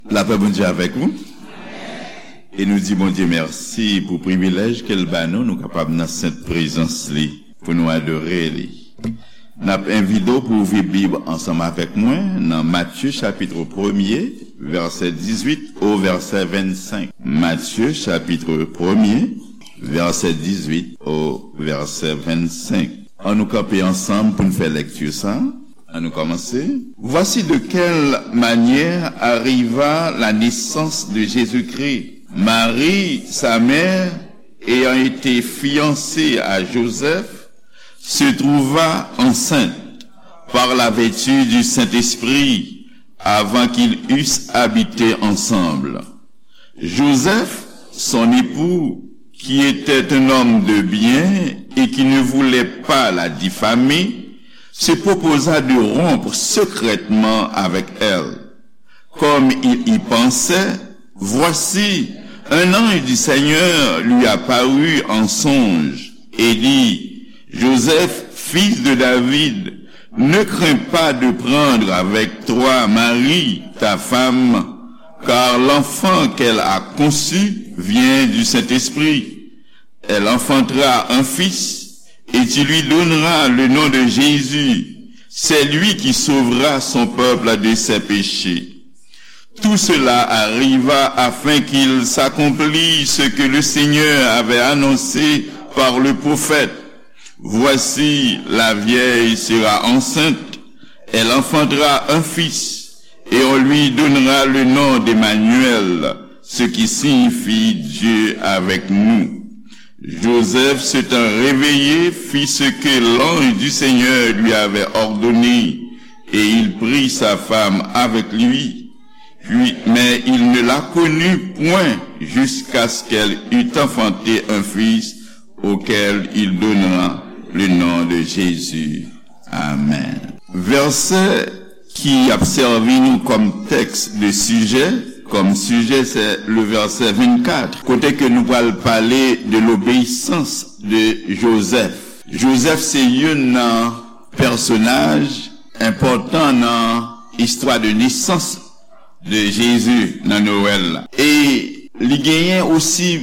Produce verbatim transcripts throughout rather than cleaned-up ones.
Lapè Bondye avèk ou. E nou di Bondye mèsi pou privilèj ke l ba nou, nou kapab nan sent prezans li, pou nou adore li. N ap envite w pou ouvri Bib ansanm avèk mwen nan Matye chapit premye, vèsè dizuit o vèsè vennsenk. Matye chapit premye, vèsè dizuit o vèsè vennsenk. An nou kanpe ansanm pou n fè lekti sa. An nou kòmanse. Voici de quelle manière arriva la naissance de Jésus-Christ. Marie, sa mère, ayant été fiancée à Joseph, se trouva enceinte par la vertu du Saint-Esprit avant qu'ils eussent habité ensemble. Joseph, son époux, qui était un homme de bien et qui ne voulait pas la diffamer, se proposa de rompre secrètement avec elle. Comme il y pensait, voici, un ange du Seigneur lui apparut en songe et dit, Joseph, fils de David, ne crains pas de prendre avec toi Marie, ta femme, car l'enfant qu'elle a conçu vient du Saint-Esprit. Elle enfantera un fils, et tu lui donneras le nom de Jésus. C'est lui qui sauvera son peuple de ses péchés. Tout cela arriva afin qu'il s'accomplisse ce que le Seigneur avait annoncé par le prophète. Voici, la vierge sera enceinte, elle enfantera un fils, et on lui donnera le nom d'Emmanuel, ce qui signifie Dieu avec nous. Joseph, s'étant réveillé, fit ce que l'ange du Seigneur lui avait ordonné, et il prit sa femme avec lui. Puis, mais il ne la connut point jusqu'à ce qu'elle eût enfanté un fils, auquel il donna le nom de Jésus. Amen. Vèsè ki ap sèvi nou kòm tèks de sijè, kòm sijè, se le vèsè vennkat, kote ke nou pral pale de lobeyisans de Jozèf. Jozèf se youn nan pèsonaj enpòtan nan istwa de nesans de Jezi nan Nwèl la. E li genyen osi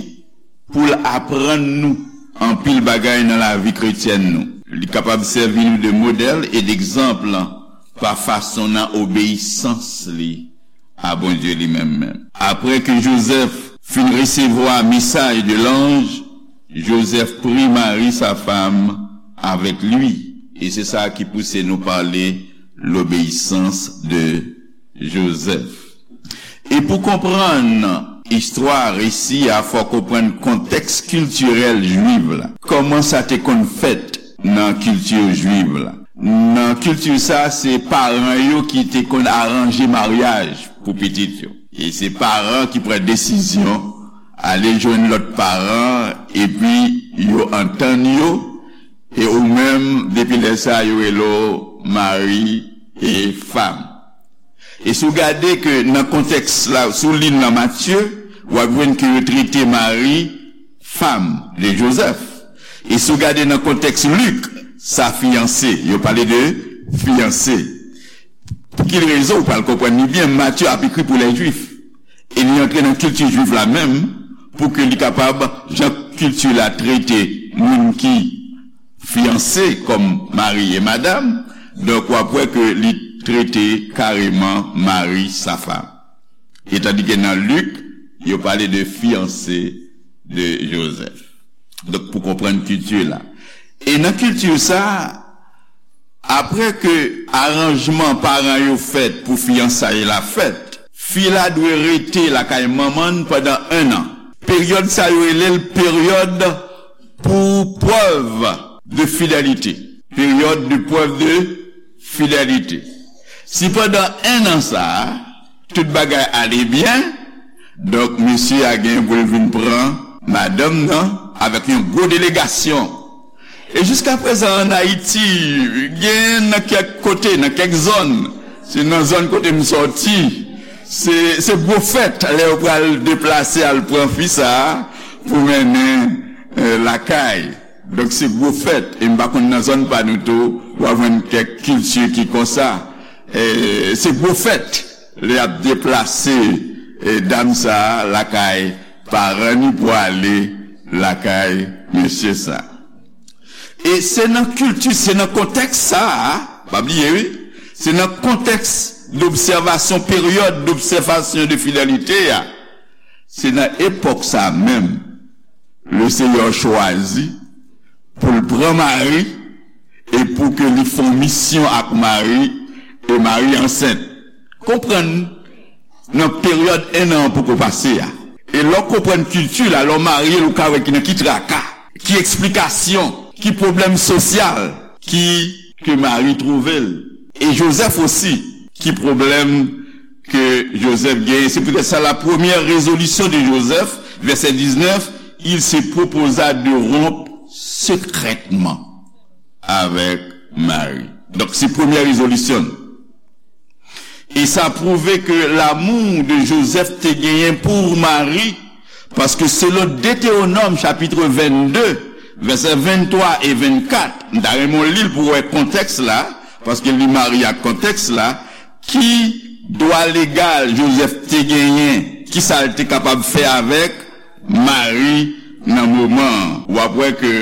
pou l aprann nou anpil bagay nan lavi kretyèn nou. Li kapab sèvi nou de modèl e degzanp pa fason nan obeyisans li a Bondye li menm menm. Apre ke Jozèf fin resevwa mesaj de lanj, Jozèf pri Mari, sa fam, avèk li. E se sa ki pouse nou pale lobeyisans de Jozèf. E pou konprann istwa resi a, fò konprann kontèks kiltirèl jwiv la. Kòman sa te konn fèt nan kilti jwiv la? Nan kilti sa, se paran yo ki te konn aranje maryaj pou pitit yo. E se paran ki pran desizyon ale jwenn lòt paran, epi yo antann yo, e ou menm, depi lè sa, yo rele w mari e fam. E si w gade ke nan kontèks la, si w li nan Matye, w ap jwenn ke yo trete Mari fam de Jozèf. E si w gade nan kontèks Lik, sa fiyanse. Yo pale de fiyanse. Pou ki rezon? Ou pral konprann li byen, Matye ap ekri pou lè Jwif. E li antre nan kilti jwif la menm pou ke li kapab, jan kilti la trete moun ki fiyanse kòm mari e madanm, donk w ap wè ke li trete kareman mari sa fam. E tandike nan Lik, yo pale de fiyanse de Jozèf. Donk, pou konprann kilti la. E nan kilti sa, apre ke aranjman paran yo fèt pou fiyansay la fèt, fi la dwe rete lakay manman l pandan en an. Peryòd sa yo rele l peryòd pou prèv de fidelite. Peryòd de prèv de fidelite. Si pandan en an sa a, tout bagay ale byen, donk mesye a gen pou l vin pran madanm nan avèk yon gwo delegasyon. E jiskaprezan ann Ayiti, gen nan kèk kote, nan kèk zòn, se nan zòn kote m sòti, se, se gwo fèt lè yo pral deplase al pran fi sa a pou mennen, eh, lakay. Donk, se gwo fèt. E m pa konn nan zòn pa nou tou, w a jwenn kèk kilti ki konsa. E se gwo fèt lè y ap deplase e, dam sa a lakay paran ni pou ale lakay mesye sa. E se nan kilti, se nan kontèks sa a, pa bliye wi, se nan kontèks dobsèvasyon, peryòd dobsèvasyon de fidelite a, se nan epòk sa a menm, Lesenyè chwazi pou l pran Mari e pou ke li fè yon misyon ak Mari, e Mari ansent. Konprann nan peryòd en an poko pase a. E lè w konprann kilti la, lè w marye l, ou ka wè ki nan ki traka, ki eksplikasyon, ki pwoblèm sosyal ki ke Mari twouve l. E Jozèf osi, ki pwoblèm ke Jozèf genyen. Se poutèt sa, la première résolution de Joseph, verset dix-neuf, il se proposa de rompre secrètement avec Marie. Donk, se premyè rezolisyon l. E sa pwouve ke lamou de Jozèf te genyen pou Mari, paske selon Detewonòm chapit vennde, vèsè venntwa e vennkat, m ta renmen w li l pou w wè kontèks la, paske li marye ak kontèks la, ki dwa legal Jozèf te genyen, ki sa l te kapab fè avèk Mari nan moman an. W ap wè ke,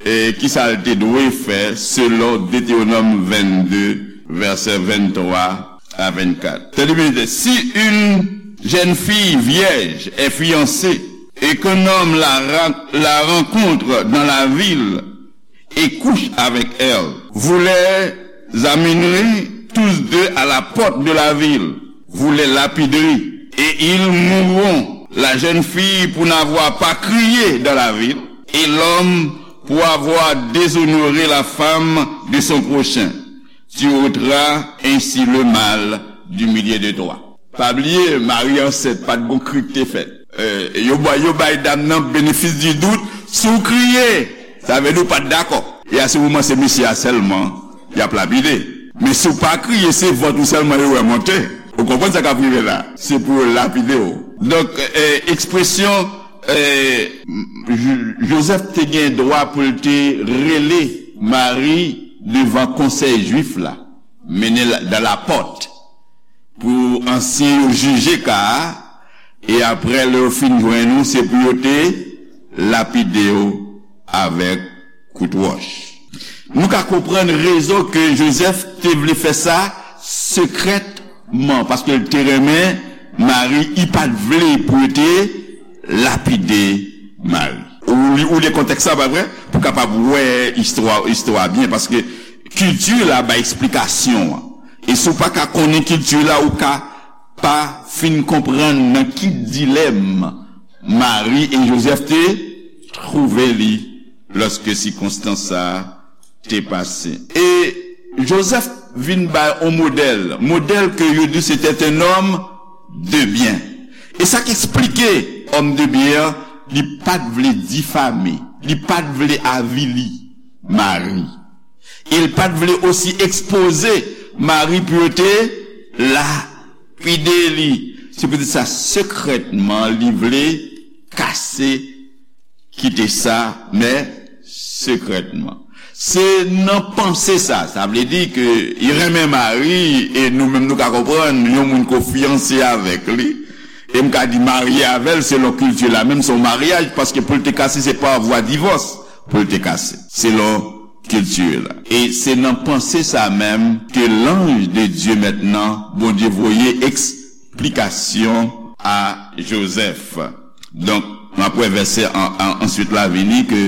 e, ki sa l te dwe fè selon Detewonòm vennde, vèsè venntwa a vennkat. Tande byen, si une jeune fille vierge est fiancée et qu'un homme la, ra- la rencontre dans la ville et couche avec elle, vous les amènerez tous deux à la porte de la ville, vous les lapiderez, et ils mourront, la jeune fille pour n'avoir pas crié dans la ville, et l'homme pour avoir déshonoré la femme de son prochain. Tu ôteras ainsi le mal du milieu de toi. Pa bliye, Mari ansent, pa t gon kri k te fèt. E, yo bay, yo bay dam nan benefis di dout, si w kriye, sa vle di w pa t dakò. E a se moman se mesye a sèlman y ap lapide. Men si w pa kriye, se vant ou sèlman yo wè monte. Ou konprann sa k ap rive la? Se pou yo lapide w. Donk, e, ekspresyon, e, Jo- Jozèf te gen dwa pou l te rele Mari devan konsèy jwif la, mennen l dan lapòt, pou ansyen yo jije ka a, e apre lè yo fin jwenn ou, se pou yo te lapide w avèk kout wòch. Nou ka konprann rezon ke Jozèf te vle fè sa sekrètman, paske l te renmen Mari, li pa t vle pou yo te lapide Mari. Ou li, ou li kontèks la, pa vre? Pou kapab wè istwa, istwa byen, paske kilti la bay eksplikasyon an. E si w pa ka konnen kilti la, ou ka pa fin konprann nan ki dilèm Mari e Jozèf te twouve li lòske sikonstans sa a te pase. E Jozèf vin bay on modèl, modèl ke yo di se te un homme de bien. E sa k eksplike homme de bien an, li pa t vle difame, li pa t vle avili Mari. E l pa t vle osi ekspoze Mari pou yo te lapide li. Se poutèt sa, sekrètman, li vle kase, kite sa, men sekrètman. Se nan panse sa, sa vle di ke li renmen Mari, e nou menm nou ka konprann, yon moun ke w fiyanse avèk li, e m ka di marye avè l, selon kilti la, menm se yon maryaj, paske pou l te kase, se pa vwa divòs pou l te kase, selon kilti la. E se nan panse sa menm ke l'ange de Dieu mentnan, Bondye voye eksplikasyon a Jozèf. Donk, n ap wè vèsè an, an, answit la vini ke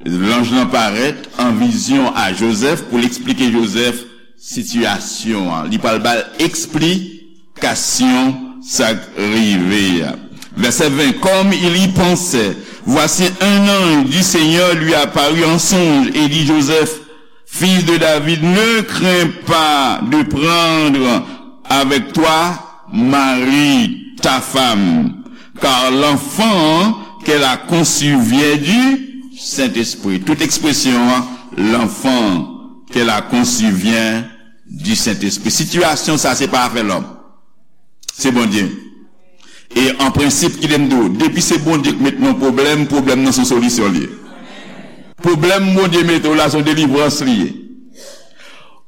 lanj lan parèt an vizyon a Jozèf pou l eksplike Jozèf sitiyasyon an. Li pral ba l eksplikasyon sa k rive a. Verset vingt, comme il y pensait, voici un ange du Seigneur lui apparut en songe et dit, Joseph, fils de David, ne crains pas de prendre avec toi Marie, ta femme, car l'enfant qu'elle a conçu vient du Saint-Esprit. Tout ekspresyon an, l'enfant qu'elle a conçu vient du Saint-Esprit. Sitiyasyon sa, se pa afè lòm. Se Bondye. E an prensip, kite m di w, depi se Bondye k met nan pwoblèm, pwoblèm nan se yon solisyon li ye. Pwoblèm Bondye mete w la, se yon delivrans li ye.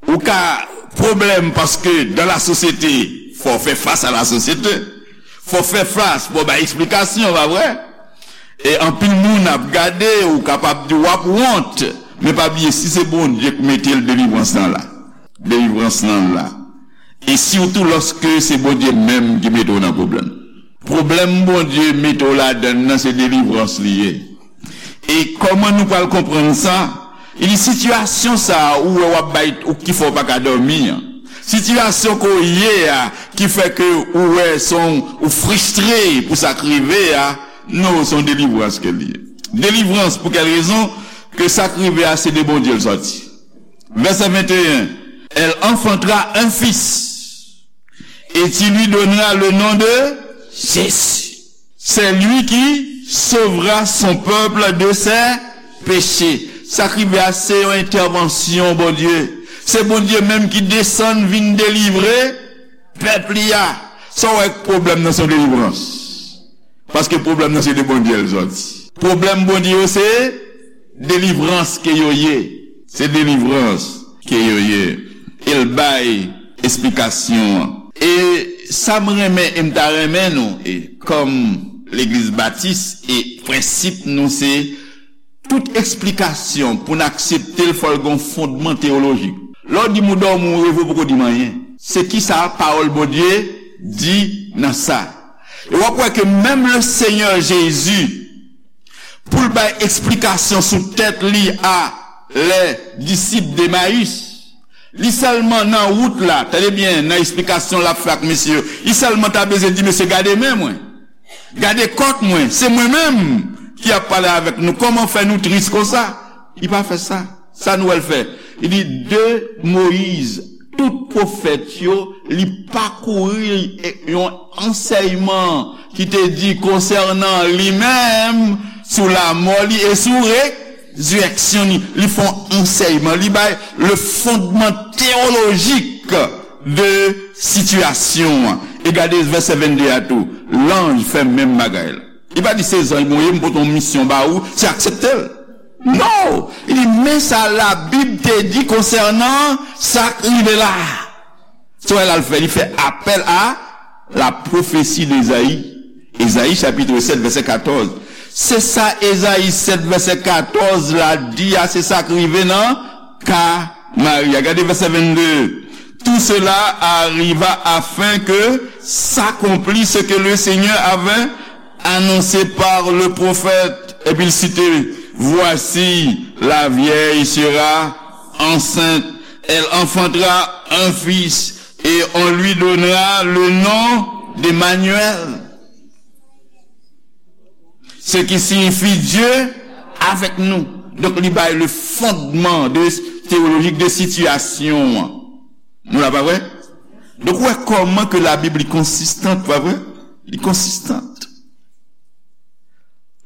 Ou ka pwoblèm paske dans la société, fò w fè fas a la sosyete. Fò w fè fas, fò w bay eksplikasyon, pa vre? E anpil moun ap gade, ou kapab di w ap wont, men pa bliye, si se Bondye k mete l, delivrans lan la. Delivrans lan la. E sitou lòske se Bondye menm ki mete w nan pwoblèm. Pwoblèm Bondye mete w ladan l nan, se delivrans li ye. E kòman nou pral konprann sa? Li di, sitiyasyon sa a ou wè w ap bay, ou ki fè w pa ka dòmi an, sitiyasyon ke w ye a ki fè ke ou wè se yon, ou fristre pou sa k rive a, non, se yon delivrans ke l ye. Delivrans pou kèl rezon? Ke sa k rive a se de Bondye l sòti. Vèsè venteyen, elle enfantera un fils, et tu lui donneras le nom de Jésus. C'est lui qui sauvera son peuple de ses péchés. Sa k rive a se yon entèvansyon Bondye. Se Bondye menm ki desann vin delivre pèp li a. Sa w wè k pwoblèm nan se yon delivrans? Paske pwoblèm nan se de Bondye l sòti. Pwoblèm Bondye yo se delivrans ke yo ye. Se delivrans ke yo ye. E l bay esplikasyon an. E sa m renmen, e m ta renmen nou, e kòm legliz batis, e prensip nou se tout eksplikasyon pou n aksepte l, fò l gen yon fondman teyolojik. Lè w di m ou dòmi, ou reve, ou poko di m anyen. Se kisa pawòl Bondye di nan sa? E w ap wè ke menm le Senyè Jezi, pou l bay eksplikasyon sou tèt li a lè disip Demayis, li sèlman nan wout la, tande byen, nan eksplikasyon l ap fè ak mesye yo, li sèlman ta bezwen di, mesye, gade men mwen, gade kòt mwen, se mwen menm ki ap pale avèk nou, kòman fè nou tris konsa? Li pa fè sa. Sa nou wè l fè? Li di, de Moyiz, tout pwofèt yo, li pakouri yon ansèyman ki te di konsènan li menm, sou lamò li e sou rezirèksyon li. Li fè yon ansèyman, li bay le fondman teyolojik de sitiyasyon an. E gade vèsè vennde a tou. Lanj fè menm bagay la. Li pa di se zanj mwen ye, m pote yon misyon ba ou, se aksepte l. Non! Li di, men sa Labib te di konsènan sa k rive la a. Se wè l al fè, li fè apèl a la pwofesi de Ezayi. Ezayi chapit sèt, vèsè katòz. Se sa Ezayi sèt, vèsè katòz la di a, se sa k rive nan ka Mari a. Gade vèsè vennde. Tout cela arriva afin que s'accomplisse ce que le Seigneur avait annoncé par le prophète. Epi l site, voici, la vierge sera enceinte, elle enfantera un fils, et on lui donnera le nom d'Emmanuel. Ce qui signifie Dieu avec nous. Donk, li bay le fondman de, teyolojik de sitiyasyon an. Nou la, pa vre? Donk, ou wè kòman ke Labib li konsistan, pa vre? Li konsistan.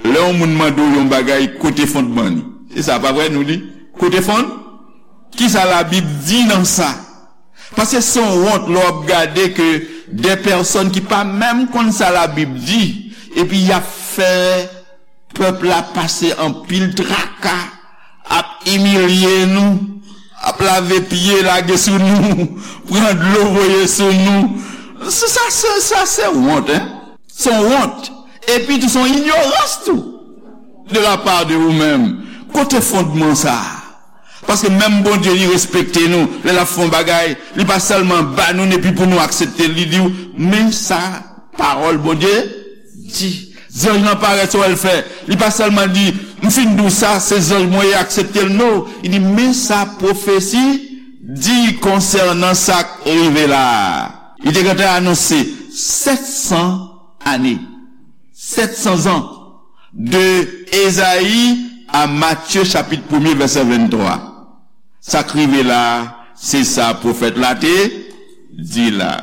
Lè yon moun mande w yon bagay, kote fondman li? Se sa, pa vre, nou di? Kote fond? Kisa Labib di nan sa? Paske se yon wont lè w ap gade ke de pèsòn ki pa menm konn sa Labib di, epi y ap fè pèp la pase anpil traka, ap imilye nou, ap lave pye lage sou nou, pran dlo voye sou nou. Sa, sa, sa, sa se wont, en. Se yon wont. Epi tou, se yon inyorans tou. De la part de ou menm. Kote fondman sa a? Paske menm Bondye, li respekte nou. Lè l ap fè yon bagay, li pa sèlman ba nou l epi pou nou aksepte l. Li di w, men sa pawòl Bondye di. Zanj lan parèt, sa w wè l fè? Li pa sèlman di, m fin di w sa, se zanj mwen ye, aksepte l. Non, li di, men sa pwofesi di konsènan sa k rive la a. Li te gentan anonse sèt san ane, sèt san zan, de Ezayi a Matye chapit premye, vèsè venntwa. Sa k rive la a, se sa pwofèt la te di la.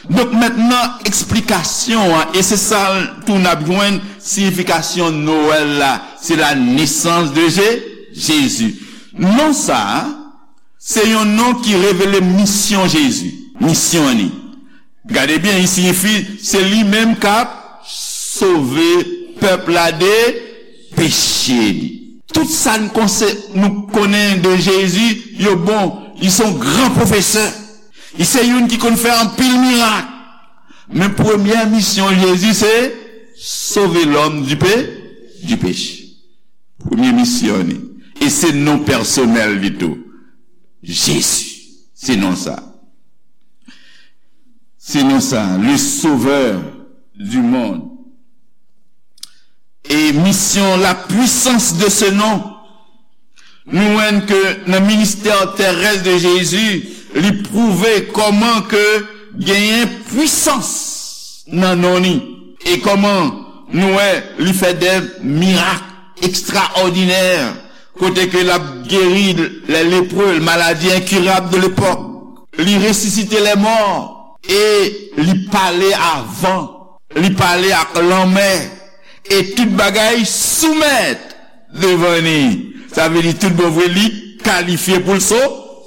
Donk, mentnan, eksplikasyon an, e se sa tou n ap jwenn siyifikasyon Nwèl la, se la nesans de Je-, Jezi. Non sa a, se yon non ki revele misyon Jezi, misyon li. Gade byen, li siyifi se li menm k ap sove pèp la de peche li. Tout sa n konse-, nou konnen de Jezi, yo bon. Li se yon gran pwofesè. Li se youn ki konn fè anpil mirak. Men premyè misyon Jezi se sove lòm di pe, di peche. Premye misyon li. E se non pèsonèl li tou. Jezi. Se non sa. Se non sa. Le Sauveur du monde. E misyon, la puissance de ce nom. Nou wè ke nan ministè terès de Jezi, li pwouve kòman ke genyen pwisans nan non li. E kòman nou wè li fè de mirak ekstraòdinè, kote ke l ap geri lè lepre, maladi enkirab de lepòk. Li resisite lè mò e li pale a van, li pale ak lanmè, e tout bagay soumèt devan li. Sa vle di tout bon vre, li kalifye pou l so,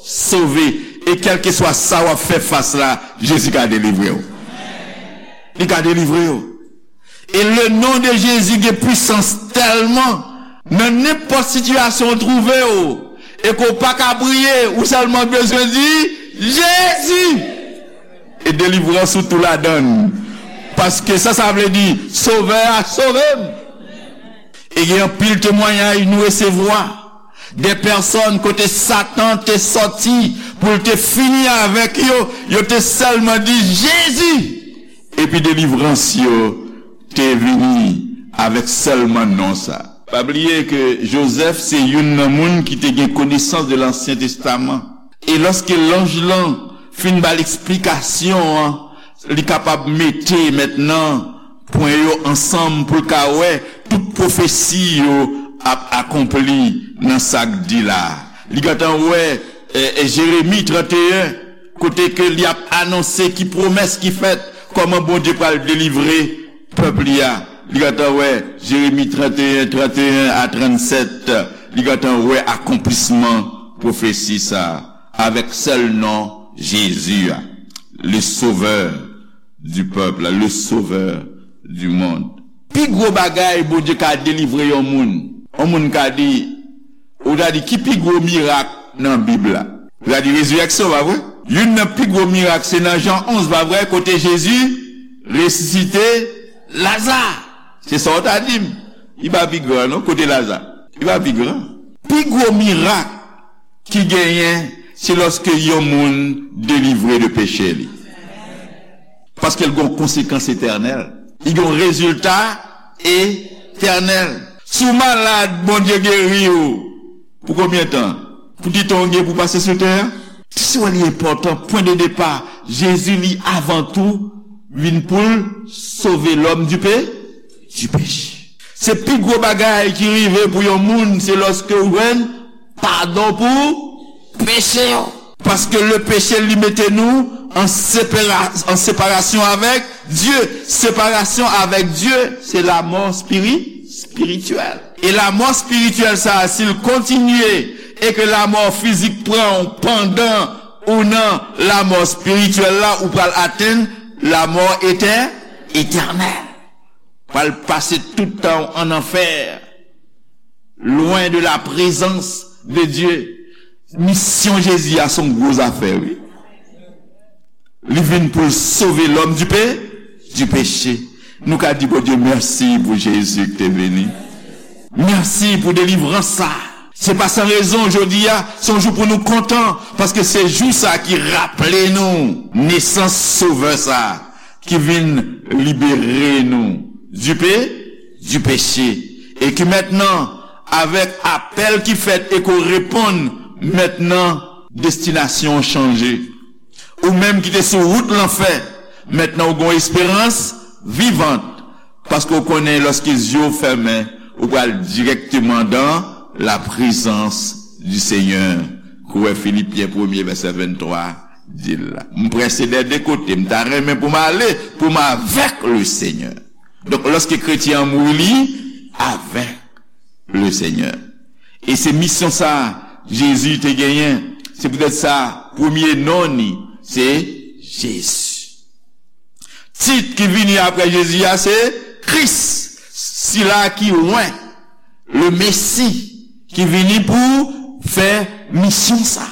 sove. E kèlkeswa sa w ap fè fas la, Jezi ka delivre w. Li ka delivre w. E le non de Jezi gen pwisans tèlman, nan nenpòt sitiyasyon w twouve w, e ke w pa ka priye, ou sèlman bezwen di, Jezi! E delivrans ou tou ladan l. Paske sa, sa vle di, Sovè a sove m. E gen anpil temwayaj nou resevwa de pèsòn kote Satan te sòti pou l te fini avèk yo, yo te sèlman di, Jezi! Epi delivrans yo te vini avèk sèlman non sa. Pa bliye ke Jozèf se youn nan moun ki te gen konesans de Lansyen Testaman. E lòske lanj lan fin ba l eksplikasyon an, li kapab mete mentnan pwen yo ansanm pou l ka wè tout pwofesi yo ap akonpli nan sa k di la. Li gentan wè, e, e, Jeremi trannteyen, kote ke li ap anonse ki pwomès ki fèt, kòman Bondye pral delivre pèp li a. Li gentan wè Jeremi trannteyen, trannteyen a trannsèt, li gentan wè akonplisman pwofesi sa a, avèk sèl non Jezi a, le Sauveur du peuple, le Sauveur du monde. Pi gwo bagay Bondye ka delivre yon moun, yon moun ka di, ou ta di, ki pi gwo mirak nan Bib la? Ou ta di, rezirèksyon, pa vre? Youn nan pi gwo mirak, se nan Jan onz, pa vre, kote Jezi resisite Laza. Se sa w ta di m. Li pa pi gran, non, kote Laza. Li pa pi gran. Pi gwo mirak ki genyen, se lòske yon moun delivre de peche li. Paske l gen yon konsekans etènèl. Li gen yon rezilta etènèl. Si w malad, Bondye geri w. Pou konbyen tan? Pou ti tan w gen pou pase sou tè a? Ti sou li enpòtan, pwen de depa, Jezi li avan tou vin pou l sove lòm di pe, di peche. Se pi gwo bagay ki rive pou yon moun, se lòske w jwenn padon pou peche yo. Paske le peche li mete nou an separa-, an separasyon avèk Dye. Separasyon avèk Dye, se lamò spiri-, spirityèl. E lamò spirityèl sa a, si l kontinye, e ke lamò fizik pran w pandan ou nan lamò spirityèl la, ou pral atenn lamò etè-, etènèl. Pral pase tout tan w an anfè, lwen de la prezans de Dye. Misyon Jezi a se yon gwo zafè, wi. Li vin pou l sove lòm di pe-, di peche. Nou ka di Bondye mèsi pou Jezi ki te vini. Mèsi pou delivrans sa. Se pa san rezon jodi a, se yon jou pou nou kontan, paske se jou sa ki raple nou nesans Sovè sa ki vin libere nou di pe-, di peche. E ki mentnan, avèk apèl ki fèt e ke w reponn, mentnan, destinasyon w chanje. Ou menm ki te sou wout lanfè, mentnan w gen yon esperans vivant, paske w konnen lòske zye w fèmen, ou pral dirèkteman dan la prezans di Senyè. Kou wè Filipyen premye vèsè venntwa di l la. M prese dè de kote, m ta renmen pou m ale, pou m avèk le Senyè. Donk, lòske kretyen an mouri, li avèk le Senyè. E se misyon sa Jezi te genyen. Se poutèt sa, premye non li, se Jezi. Tit ki vini apre Jezi a, se Kris, sila ki wen, le Mesi, ki vini pou fè misyon sa.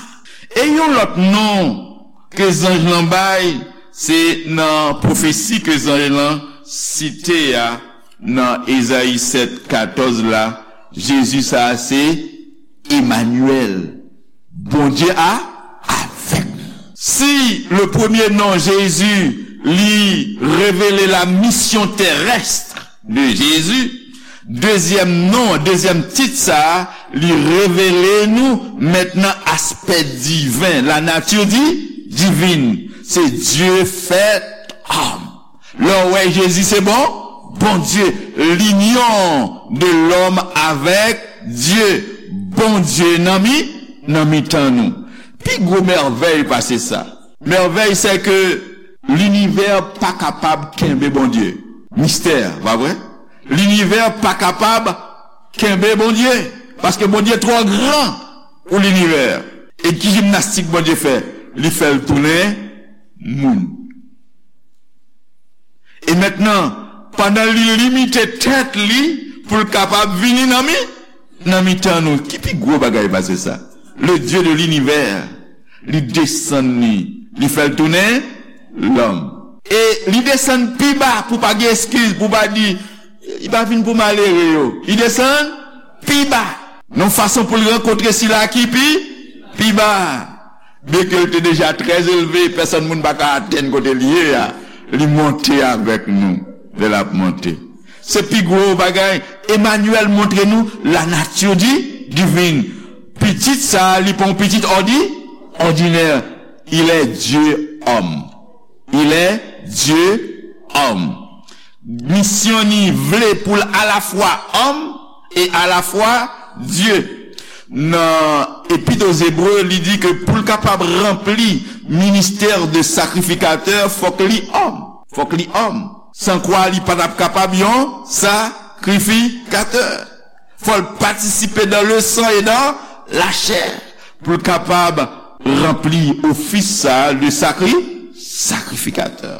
E yon lòt non ke zanj lan bay, Se nan pwofesi ke zanj lan site a nan Ezayi sèt katòz la, Jezi sa a se Emanyèl, Bondye a avèk nou. Si le premier nom Jésus li révèle la mission terrestre de Jésus, dezyèm non, dezyèm tit sa a, li revele nou mentnan aspè diven, la nature di, divine. Se Dieu fait homme. Lè w wè Jezi se bon, Bondye, l'union de l'homme avec Dieu, Bondye nan mi, nan mitan nou. Pi gwo mèvèy pase sa. Mèvèy se ke linivè pa kapab kenbe Bondye. Mistè, pa vre? Linivè pa kapab kenbe Bondye. Paske Bondye twò gran pou linivè. E ki jimnastik Bondye fè? Li fè l tounen moun. E mentnan, pandan li limite tèt li pou l kapab vini nan mi, nan mitan nou, ki pi gwo bagay pase sa? Le Dieu de l'univers, li desann li, li fè l tounen lòm. E li desann pi ba pou pa gen eskiz, pou pa di, li pa vin pou malere yo. Li desann pi ba. Nan fason pou l rankontre sila ki pi, pi ba. Byenke l te deja trè elve, pèsòn moun pa ka atenn kote l ye a. Li monte avèk nou lè l ap monte. Se pi gwo bagay. Emanyèl montre nou la nature di, divine. Pitit sa a, li pa yon pitit òdi, òdinè. Il est Dieu homme. Il est Dieu homme. Misyon ni vle pou l alafwa òm e alafwa Dye. Nan Epit aux Hébreux, li di ke pou l kapab ranpli ministè de sakrifikatè, fòk li òm. Fòk li òm. San kwa li pa t ap kapab yon sakrifikatè. Fò l patisipe dans le sang et dans la chair pou l kapab ranpli ofis sa a de sakri, sakrifikatè.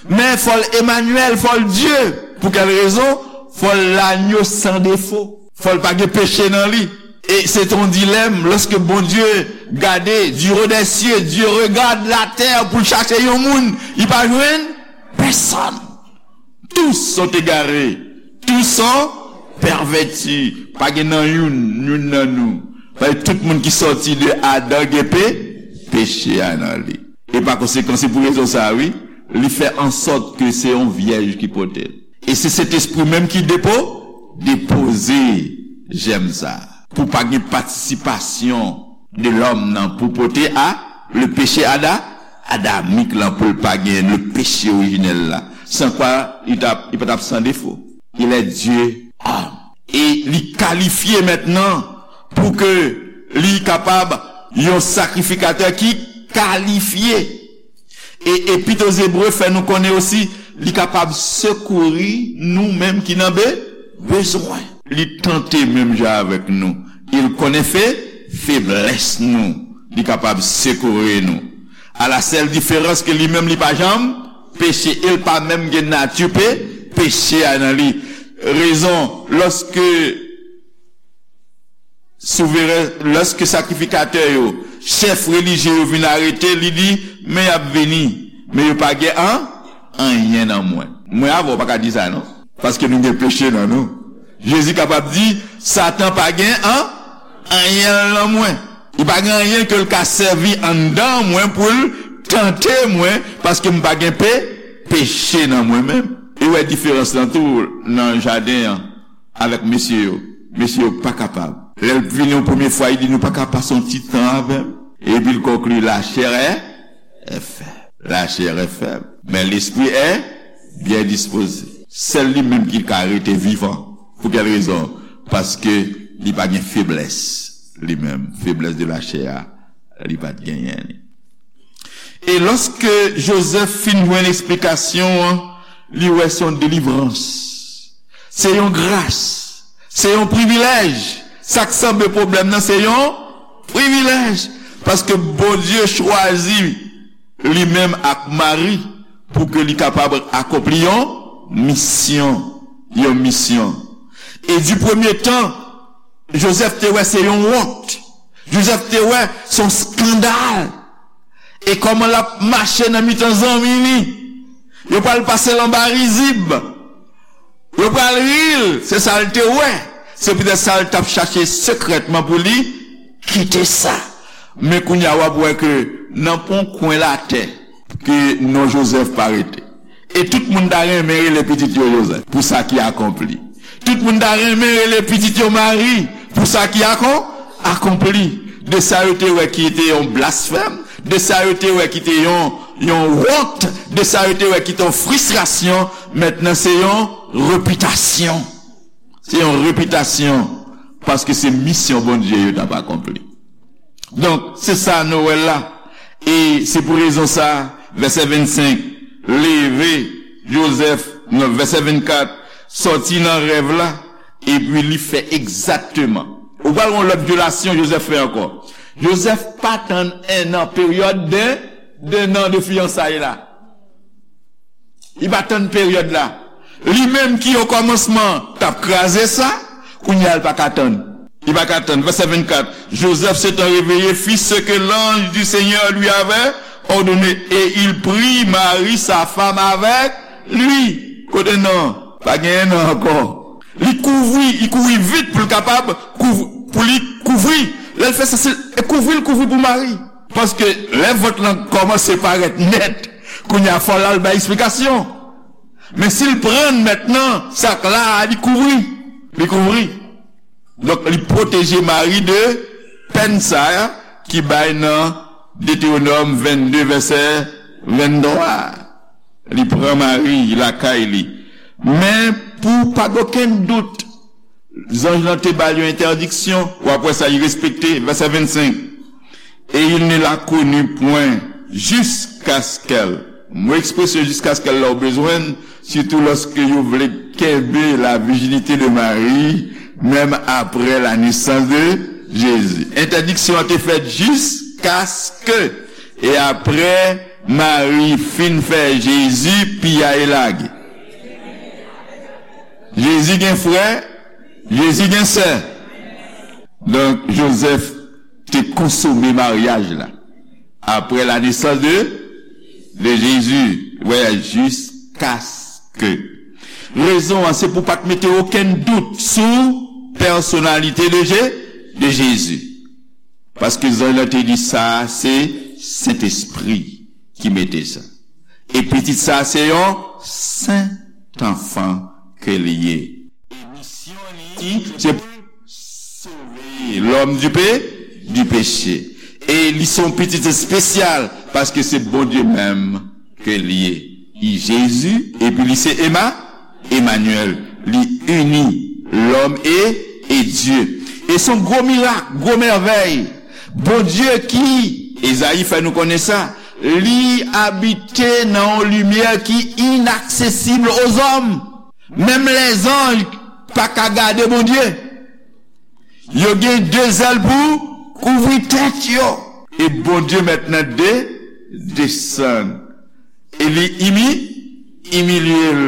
Men fò l Emanyèl, fò l Dye. Pou kèl rezon? Fò l lanyo san defo. Fò l pa gen peche nan li. E se te yon dilèm, lòske Bondye gade, du haut des cieux, Dieu regarde la terre pou l chache yon moun, li pa jwenn pèsòn. Tous sont égarés, tous sont pervertis. Pa gen nan youn, youn nan nou. Paske tout moun ki sòti de Adan gen pe, peche a nan li. E pa konsekan, se pou rezon sa a, wi, li fè ansòt ke se yon vyèj ki pote l. E se Sentespri menm ki depo, depoze jèm sa a. Pou pa gen patisipasyon de lòm nan pou pote a, le péché ada, adamik lan pou l pa gen le péché orijinèl la. San kwa, li t ap, li pa t ap san defo. Il est Dieu homme. E li kalifye mentnan pou ke li kapab yon sakrifikatè ki kalifye. E Epit aux Hébreux fè nou konnen osi, li kapab sekouri nou menm ki nan be, bezwen. Li tante menm jan avèk nou. Il konnen fe, feblès nou. Li kapab sekouri nou. A la sèl diferans ke li menm li pa janm peche, e l pa menm gen nati pe, peche a nan li. Rezon, lòske souveren, lòske sakrifikatè yo, chèf relijye yo vin arete, li di, men y ap vini, men yo pa gen an, anyen nan mwen. Mwen avè w pa ka di sa non, paske nou gen peche nan nou. Jezi kapab di, Satan pa gen an, anyen nan mwen. Li pa gen anyen ke l ka sèvi anndan mwen pou l tante mwen, paske m pa gen pe, peche nan mwen menm. E wè diferans lan tou nan jaden an avèk mesye yo. Mesye yo pa kapab. Lè l vini yon premye fwa, li di, nou pa ka pase yon ti tan avè m. Epi l konkli, la chair est, est faible. La chair est faible, mais l'esprit est bien disposé. Sèl li menm ki ka rete vivan. Pou kèl rezon? Paske li pa gen feblès li menm. Feblès de la chair a, li pa t genyen li. E lòske Jozèf fin jwenn eksplikasyon an, li wè se yon delivrans. Se yon gras. Se yon privilèj. Sa k sanble pwoblèm nan, se yon privilèj. Paske Bondye chwazi li menm ak Mari pou ke li kapab akonpli yon misyon. Yon misyon. E di premye tan, Jozèf te wè se yon wont. Jozèf te wè se yon eskandal. E kòman l ap mache nan mitan zanmi li? Yo pral pase l anba rizib. Yo pral ri l. Se sa l te wè. Se poutèt sa l t ap chache sekrètman pou li kite sa. Men kounye a w ap wè ke nan pon kwen latè ke non Jozèf pa rete. E tout moun ta renmen rele pitit yo Jozèf pou sa ki akonpli. Tout moun ta renmen rele pitit yo Mari pou sa ki akon, akonpli. De sa yo te wè ki te yon blasfèm, de sa yo te wè ki te yon, yon wont, de sa yo te wè ki te yon fristrasyon, mentnan se yon repitasyon. Se yon repitasyon paske se misyon Bondye yo t ap akonpli. Donk, se sa nou wè la. E se pou rezon sa, vèsè vennsenk, leve Jozèf, non, vèsè vennkat, sòti nan rèv la, epi li fè egzakteman. Ou pral wè yon lòt vyolasyon Jozèf fè ankò. Jozèf pa tann en an, peryòd de, de nan de fiyansay la. Li pa tann peryòd la. Li menm ki okòmansman t ap kraze sa, kounye a l pa ka tann. Li pa ka tann. Vèsè vennkat, Joseph s'étant réveillé fit ce que l'ange du Seigneur lui avait ordonné, et il prit Marie, sa femme, avec lui. Kote non? Pa genyen non ankò. Li kouvri, li kouri vit pou l kapab kouv-, pou li kouvri. Lè l fè sa, se kouvri l kouvri pou Mari. Paske lè vant lan kòmanse parèt nèt, kounye a fò l al bay eksplikasyon. Men si l pran mentnan, sa k la a, li kouvri. Li kouvri. Donk, li pwoteje Mari de pèn sa a ki bay nan Detewonòm vennde, vèsè venntwa. Li pran Mari lakay li. Men pou pa gen okenn dout, zanj lan te ba l yon entèdiksyon, w ap wè sa, li respekte, vèsè vennsenk. Et il ne la connut point jusqu'à ce qu'elle. Mo ekspresyon jusqu'à ce qu'elle la ou bezwen, sitou lòske yo vle kenbe la virginité de Marie, menm aprè la naissance de Jésus. Entèdiksyon an te fèt jusqu'à ce que, e aprè Mari fin fè Jezi, piya e lage. Jezi gen frè, Jezi gen sè. Donk, Joseph te konsome maryaj la. Après la naissance de, de Jésus, voyage jusqu'à ce que. Rezon an, se pou pa t mete okenn dout sou pèsonalite de Je-, de Jezi. Paske zanj lan te di sa, se Sentespri ki mete sa. E pitit sa, se yon sentanfan ke li ye. E misyon li, se pou sove lòm di pe-, di peche. E li se yon pitit espesyal, paske se Bondye menm ke li ye. Li Jezi, epi li se Ema-, Emanyèl. Li ini lòm e, e Dye. E se yon gwo mirak, gwo mèvèy. Bondye ki, Ezayi fè nou konnen sa, li abite nan yon limyè ki inaksesib ozòm. Menm lèzanj pa ka gade Bondye. Yo gen de zèl pou kouvri tèt yo. E Bondye mentnan de, desann. E li imi-, imilye l.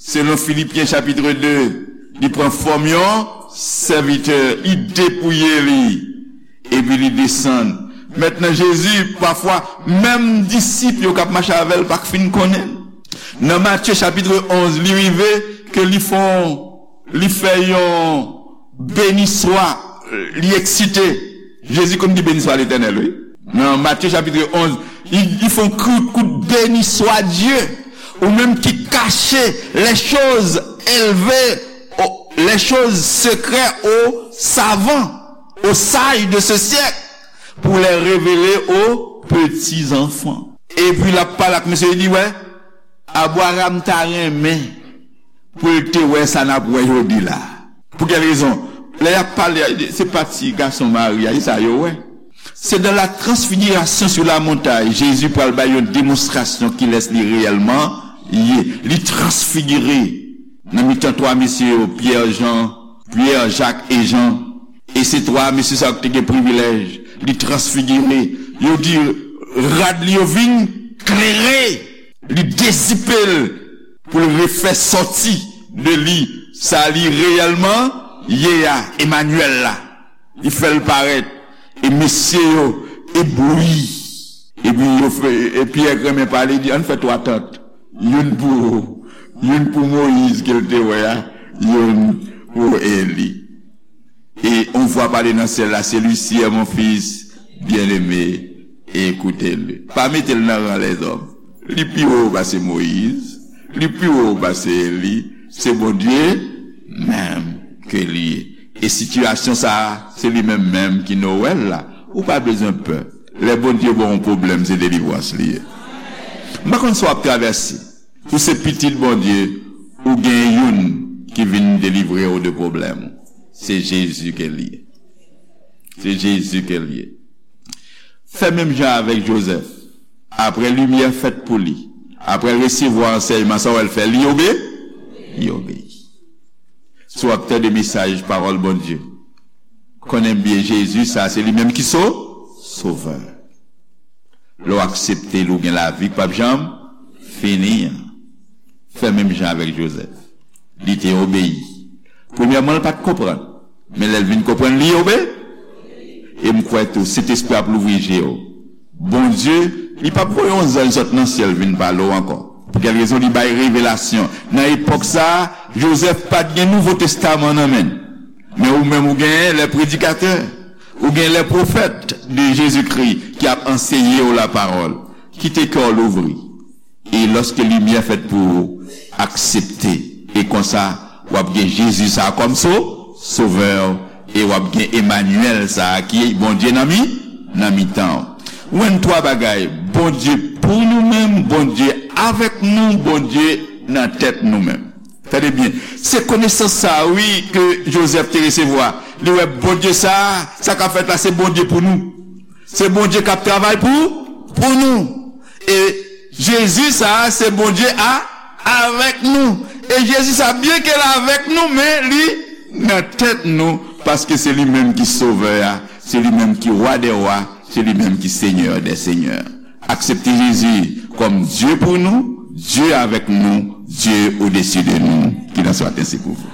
Selon Filipyen chapit de, li pran fòm yon sèvitè, li depouye li. Epi li desann. Mentnan Jezi, pafwa, menm disip yo k ap mache avè l pa k fin konnen l. Nan Matye chapit onz, li rive ke li fè yon, li fè yon beniswa, li eksite. Jezi konn di beniswa Letènèl, wi. Nan Matye chapit onz, li, li fè yon kout, kout beniswa Dye, ou menm ki kache les choses élevées, au- les choses secrètes aux savants, aux sages de ce siècle, pour les révéler aux petits enfants. Epi l ap pale ak mesye, li di, wè, Abraram ta renmen pou l te wè sa n ap wè jodi la. Pou kèl rezon? Lè y ap pale, se pa ti gason Mari a, se sa yo wè. C'est dans la transfiguration sur la montagne, Jezi pral bay yon demonstrasyon kilès li reyèlman ye. Li transfigire nan mitan twa mesye yo, Pyè, Jan, Pyè, Jak e Jan. E se twa mesye sa yo ki te gen privilèj. Li transfigire. Yo di rad li yo vin klere. Li dezipe l pou l refè sòti de li sa li reyèlman ye a, Emanyèl la. Li fè l parèt. E mesye yo eblouyi. Epi yo fè, e Pyè k renmen pale, di, ann fè twa tant. Youn pou, youn pou Moyiz ke l te wè a, youn pou Eli. E on vwa pale nan syèl la, celui-ci est mon fils bien-aimé, écoutez-le. Pa mete l nan ran lèzòm. Li pi wo pase Moyiz, li pi wo pase Eli, se Bondye menm ke li ye. E sitiyasyon sa a, se li menm menm ki Nowèl la. Ou pa bezwen pè. Lè Bondye ba w yon pwoblèm, se delivrans li ye. M pa konn sa w ap travèse. Ou se pitit Bondye, ou gen youn ki vin delivre w de pwoblèm ou. Se Jezi ke l ye. Se Jezi ke l ye. Fè menm jan avèk Jozèf. Apre limyè fèt pou li, apre l resevwa ansèyman, sa w wè l fè? Li obe-, li obeyi. Si w ap tande mesaj pawòl Bondye, konnen byen Jezi sa, se li menm ki so-, sovè. Lè w aksepte l, ou gen lavi k p ap janm fini an. Fè menm jan avèk Jozèf. Li te obeyi. Premyèman, l pa t konprann. Men lè l vin konprann, li obe-, e m kwè tou, Sentespri ap louvri je w. Bondye, li p ap voye yon zanj sot nan syèl vin pale w ankò. Pou kèl rezon? Li bay revelasyon. Nan epòk sa a, Jozèf pa t gen Nouvo Testaman nan men l. Men ou menm, ou gen lè predikatè, ou gen lè pwofèt de Jezikri ki ap anseye w lapawòl. Kite kè w louvri. E lòske limyè fèt pou ou, aksepte. E konsa, w ap gen Jezi sa a kòm so-, sovè w, e w ap gen Emanyèl sa a ki Bondye nan mi-, nan mitan w. Ou jwenn twa bagay, Bondye pou nou menm, Bondye avèk nou, Bondye nan tèt nou menm. Tande byen, se konesans sa a, wi, ke Jozèf te resevwa. Li wè Bondye sa a, sa k ap fèt la, se Bondye pou nou. Se Bondye k ap travay pou, pou nou. E Jezi sa a, se Bondye a, avèk nou. E Jezi sa a, byen ke l avèk nou, men li nan tèt nou, paske se li menm ki Sovè a, se li menm ki Wa dè wa, se li menm ki Senyè dè senyè. Aksepte Jezi kòm Dye pou nou, Dye avèk nou, Dye odesi de nou. Qu'il en soit ainsi pour vous.